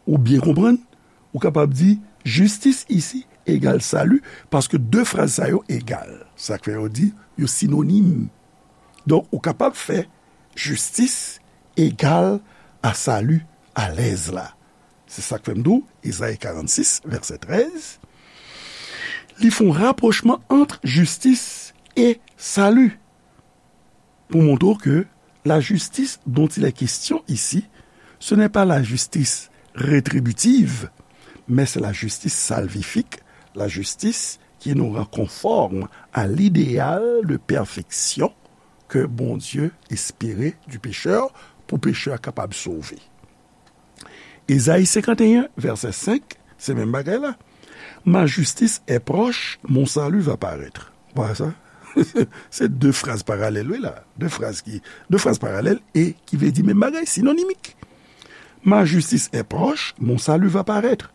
ou byen konprann, ou kapab di, jistis isi egal sali, paske de fraz sa yo egal. Sa k fè yo di, yo sinonim. Donk, ou kapab fè jistis egal a sali alèz la. Se sa k fè m di w, Ezayi karannsis, vèsè trèz, li fè yon rapwochman ant jistis e sali. Pou montre w ke la justice dont il est question ici, ce n'est pas la justice rétributive, mais c'est la justice salvifique, la justice qui nous rend conformes à l'idéal de perfection que Bondye espere du pécheur, pou pechè a kapab sove. Ezayi senkanteyen, vèsè senk, se menm bagay la. Ma justice est proche, mon salut va paraître. Ou pa wè sa? Se de fraz paralèl, wi, la. De fraz ki, de fraz paralèl e ki vle di menm bagay, sinonimik. Ma justice est proche, mon salut va paraître,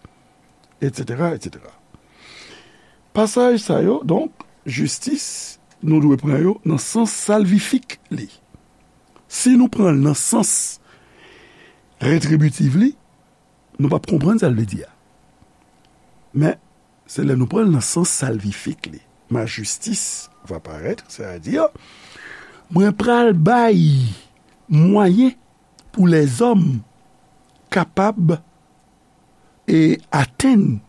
et cetera, et cetera. Pasaj sa yo, donk, jistis, nou dwe pran yo nan sans salvifik li. Si nou pran l nan sans retribitif li, nou p ap konprann sa l vle di a. Men, se lè nou pran l nan sans salvifik li. Ma justice va paraître, sètadi, mwen pral bay mwayen pou lèzòm kapab e atenn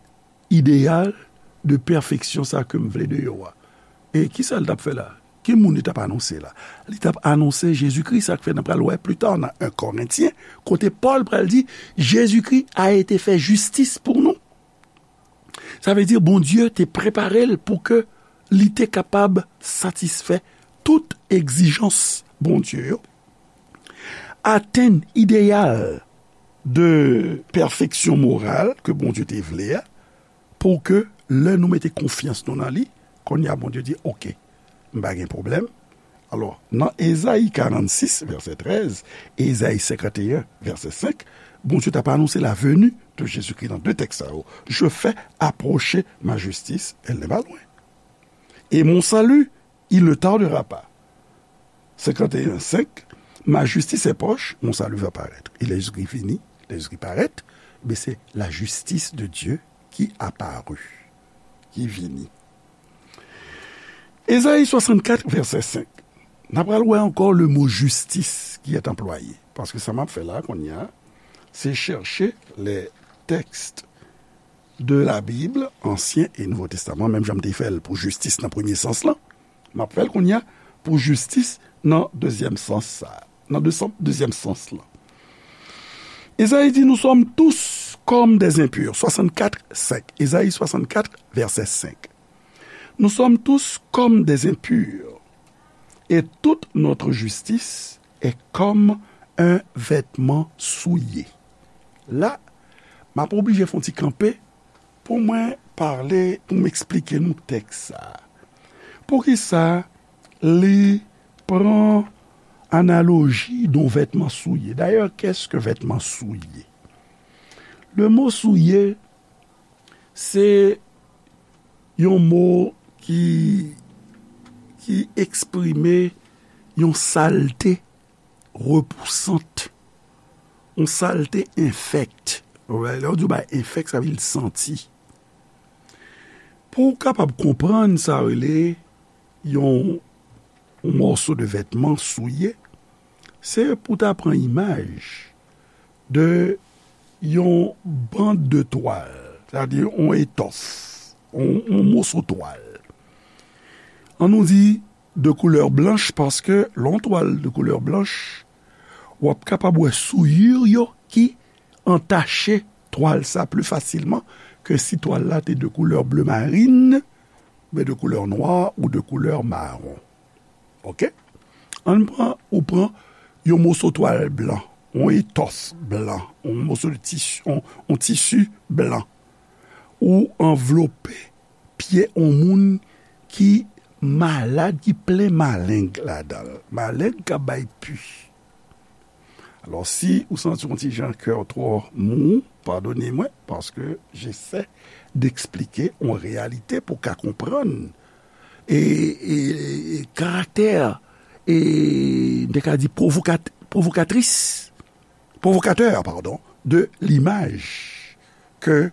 ideyal de pèfeksyon sa ke m vle de yo a. E kisa l t ap fè la? Ki moun li t ap anonse la? Li t ap anonse Jezikri, sa k fè n ap pral wè pli ta nan en Korentyen, kote Pòl pral di, Jezikri a été fait justice pour nous. Sa vle di Bondye te prepare l pou ke li te kapab satisfè tout egzijans Bondye yo, atenn ideyal de pèfeksyon moral ke Bondye te vle a, pou ke lè nou mete konfyans nou nan li, kounye a Bondye di, oke, m pa gen pwoblèm. Alò, nan Ezayi karannsis, vèsè trèz, e Ezayi senkanteyen, vèsè senk, Bondye t ap anonse la venue de Jésus-Christ nan de tèks sa yo. Je fais approcher ma justice, elle n'est pas loin. Et mon salut, il ne tardera pas. Senkanteyen senk, ma justice est proche, mon salut va paraître. E lè Jezikri vini, lè Jezikri parèt, men se la justice de Dieu qui apparut, ki vini. Ezayi swasannkat, vèsè senk. N ap pral wè ankò le mot justice qui est employé. Paske sa m ap fè la, kounye a, se chèche les textes de la Bible, Ansyen e Nouvo Testaman, menm jan m te fè l pou jistis nan premye sans lan, m ap fè l kounye a pou jistis nan dezyèm sans sa, nan de san, dezyèm sans lan. Ezayi di, nous sommes tous comme des impurs. Swasannkat, senk. Ezayi swasannkat, vèsè senk. Nous sommes tous comme des impurs, et toute notre justice est comme un vêtement souillé. La, m ap oblije fè yon ti kanpe pou mwen pale, pou m eksplike nou tèks sa a. Poukisa li pran analoji de yon vètman souye? Dayè, qu'est-ce que vêtement souillé? Le mot souillé, se yon mo ki, ki eksprime yon salte repousant, yon salte enfèkt. Lè yo di yon bagay enfèkt, sa vle di santi. Pou w kapab konprann sa rele yon, yon mòso de vètman souye, se pou ta pran imaj de yon bande de twal, sètadi yon etòf, yon, yon moso twal. An nou di de koulè blanch, paske lè yon twal de koulè blanch, w ap kapab wè souyir yo ki antache twal sa pli fasilman ke si twal la te de koulè ble marin, oubyen de koulè nwa ou de koulè mawon. Oke? Ann pran, ou pran yon moso twal blan, yon etòf blan, yon moso de tisi, yon, yon tisi blan. Ou anvlope pye yon moun ki malad, ki plen maleng ladan l. Maleng k ap bay pi. Alò, si ou santi yon ti jan kè w twò mou, padone mwen, paske j'essaie d'expliquer yon reyalite pou w ka konprann e, e, e karaktè, e, m te ka di pwovokat-, pwovokatris, pwovokatè, padon, de limaj ke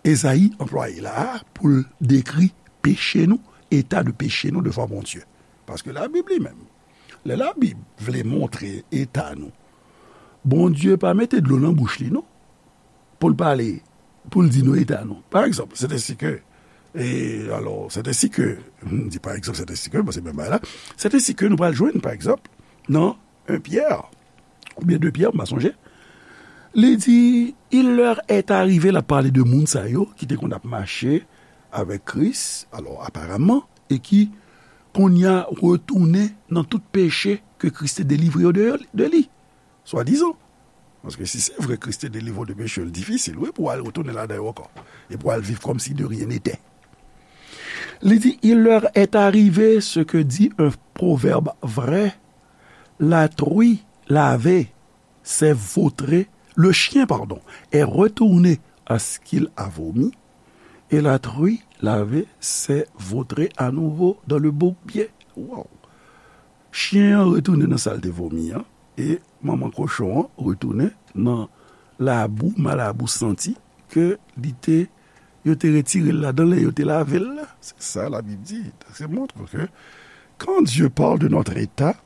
Ezayi anplwaye la a pou l dekri peche nou, eta de peche nou devan Bondye. Paske Labib li menm, lè Labib vle montre eta nou, Bondye pa mete dlo nan bouch li, non, pou l pale, pou l di nou eta nou. Pa egzanp, c'est ainsi que, e, alò, c'est ainsi que, m di pa egzanp, c'est ainsi que, bon, se menm bagay la, c'est ainsi que nou pral jwenn, pa egzanp, nan en Pyè, oubyen de Pyè, m pa sonje, li di, il leur est arrivé, l ap pale de moun sa yo ki te konn ap mache avèk Kris, alò, aparamman, e ki, kounye a, retounen nan tout peche ke Kris te delivre yo de, de li, swadizan. Paske si se vre Kris te delivre w de peche, l difisil, wi, pou w al retounen ladan yo ankò, e pou w al viv kòmsi de rien n'était. Li di, il leur est arrivé ce que dit un proverbe vrai, la truie lavée s'est vautrée, le chien, pardon, est retourné à ce qu'il a vomi, et la truie lavée s'est vautrée à nouveau dans le bourbier. Wow! Chen an retounen nan sa l te vomi an, e manman kochon an retounen nan labou, malabou santi ke li te, yo te retire l ladan l e yo te lave l la. Se sa Labib di. Se montre ke quand Dieu parle de notre état,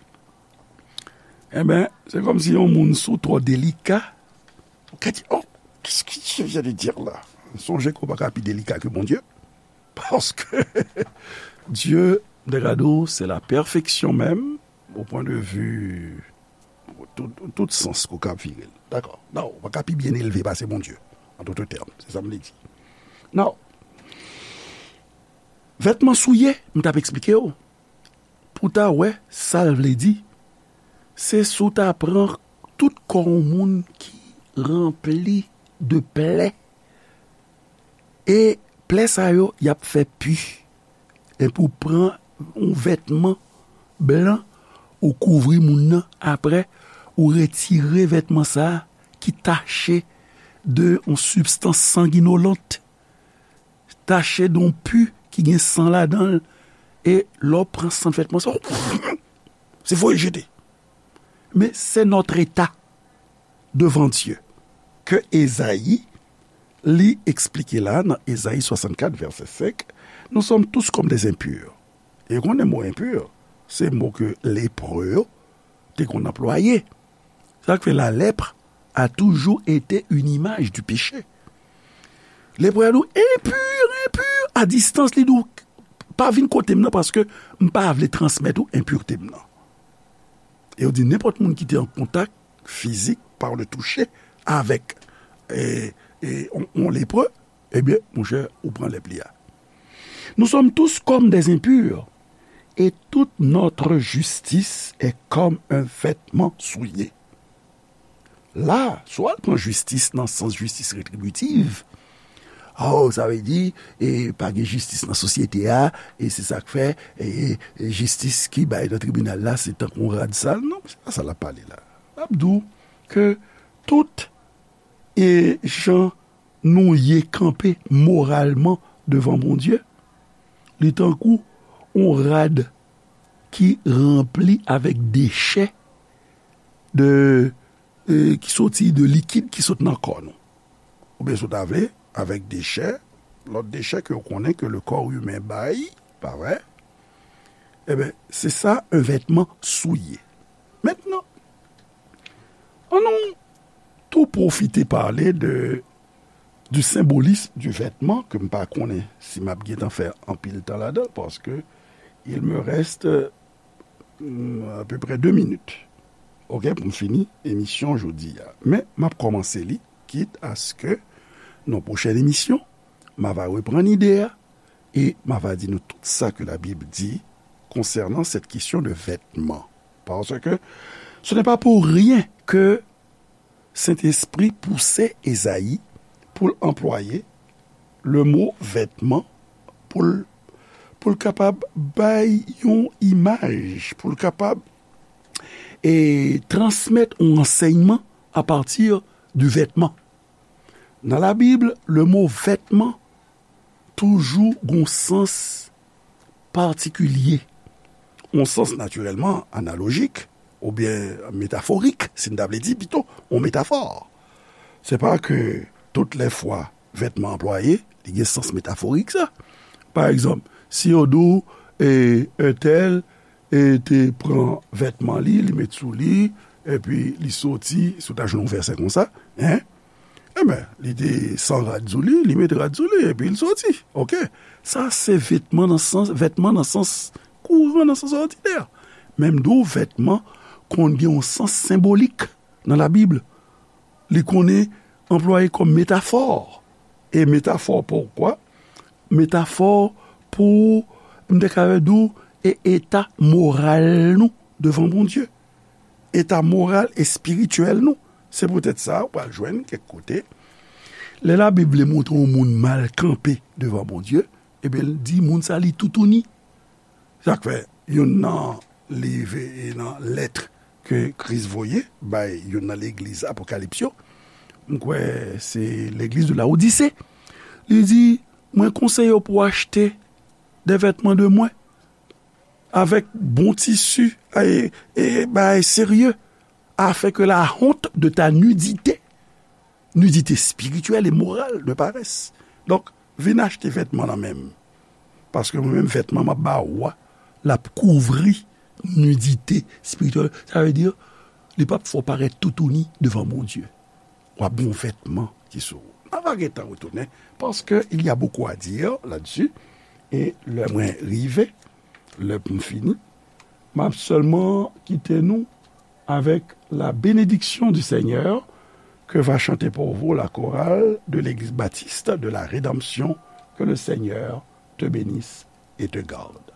e ben, se kòmsi yon moun si w twò delika, ou ka di, oh, qu'est-ce que Dieu vient de dire là? Sonje ke w pa ka pi delika ke Bondye. Paske Dye, m te ka di w, se la pèfeksyon menm, o pwen de vi, tout, tout sans ke w ka vire l. Dakò. Non, ou pa ka pi byen elve pase Bondye, an dout tèm. Se sa m vle di. Non. Vètman souye, m t ap eksplike w. Pou w ta wè sa l vle di, se si w ta pran tout kò yon moun ki ranpli de plè, e plè sa yo, y ap fè pi. Epi w pran yon vètman blan, ou kouvri moun nan, apre, ou retire vètman sa a ki tache de yon sibstans sanginolent, tache de yon pi ki gen san ladan l, e lè w pran san vètman sa, se voye jete. Men se notre état devant Dieu ke Ezayi, li eksplike la nan Ezayi swasannkat, vèsè senk, nous sommes tous comme des impurs. E konnen mo impur, se mo ke lepre yo te konn anplwaye. Sa k fè la lèpre a toujou ete une image du péché. Lepre a di w, enpi, enpi, a distans li di w, pa vin kote m nan paske m pa vle transmèt ou enpirte m nan. E yo di nenpòt moun ki te an kontak fizik, par le toucher, avèk, e, e, on, on lepre, ebyen, monchè, ou pran lèp li a. Nous sommes tous comme des impurs, et toute notre justice est comme un vêtement souillé. La, si w al pran jistis nan sans jistis retribitiv, oh, sa vle di, e, pa gen jistis nan sosyete a, e se sa k fè, e, e, jistis ki bay nan tribinal la, se tankou yon rad sal. Non, se pa sa l ap pale la. L ap di w ke tout, e, jan nou ye kanpe moralman devan Bondye, li tankou yon rad ki ranpli avèk dechè de, e, ki soti de likid ki sot nan kò nou. Oubyen si w ta vle, avèk dechè, lòt dechè ke w konnen ke le corps humain bay, pa vre? Eben, se sa, un vêtement souillé. Mentnan, ann nou tou pwofite pale de, du symbolisme du vêtement, ke m pa konnen si m ap gentan fè anpil tan ladan l, paske il me reste, mm, à peu près deux minutes, ok, pou m fini emisyon jodi a. Men, m ap kòmanse li, kit aske nan pwochèn emisyon, m ava reprann ide a, e m ava di nou tout sa ke Labib di konsènan cette question de vêtement. Parce que ce n'est pas pour rien que Sentespri pouse Ezayi pou l anplwaye le mo vètman, pou l, pou l kapab bay yon imaj, pou l kapab, e, transmèt yon ansèyman apati di vètman. Nan Labib, le mo vètman toujou gon sans patikilye, yon sans natirèlman analojik oubyen metaforik, si n ta vle di pito, yon metafò. Se pa ke tout lè fwa vètman anplwaye, li gen sans metaforik sa. Pa egzanp, si yo di w, e, entèl, e, te pran vètman li, li met sou li, epi li soti, si w ta jwenn yon vèsè konsa, en, enben, li te san rad sou li, li met rad sou li, epi l soti. Ok? Sa se vètman nan sans, vètman nan sans kouran, nan sans òdinè. Men m di w, vètman konn gen yon sans senbolik nan Labib. Li konnen anplwaye kòm metafò. E metafò poukwa? Metafò pou, m te ka di w, e eta moral nou devan Bondye. Eta moral, espirityèl nou. Se poutèt sa, ou pral jwenn kèk kote, lè Labib vle montre yon moun mal kanpe devan Bondye, Ebyen, l di moun sa li toutouni. Sa k fè, youn nan liv, e nan lèt ke Kris voye bay youn nan legliz Apokalips yo, m kwè se legliz de Laodise, li di, mwen konseye w pou w achte de vètman de mwen avèk bon tisi e, e bagay serye, afin que la honte de ta nudité, nudité spirituelle et morale, ne paraisse. Donk, vin achte vètman nan men m. Paske mwen menm, vètman m ap ba ou a, l ap kouvri nidite espirityèl. Sa vle di, li p ap fè w parèt toutouni devan Bondye. W ap gen yon vètman ki sou ou. N a va gentan retounen, paske il y a beaucoup à dire là-dessus. E lè mwen rive, lè pou m fini, m ap sèlman kite nou avec la bénédiction du Seigneur que va chanter pour vous la chorale de l'Église baptiste de la rédemption. Que le Seigneur te bénisse et te garde.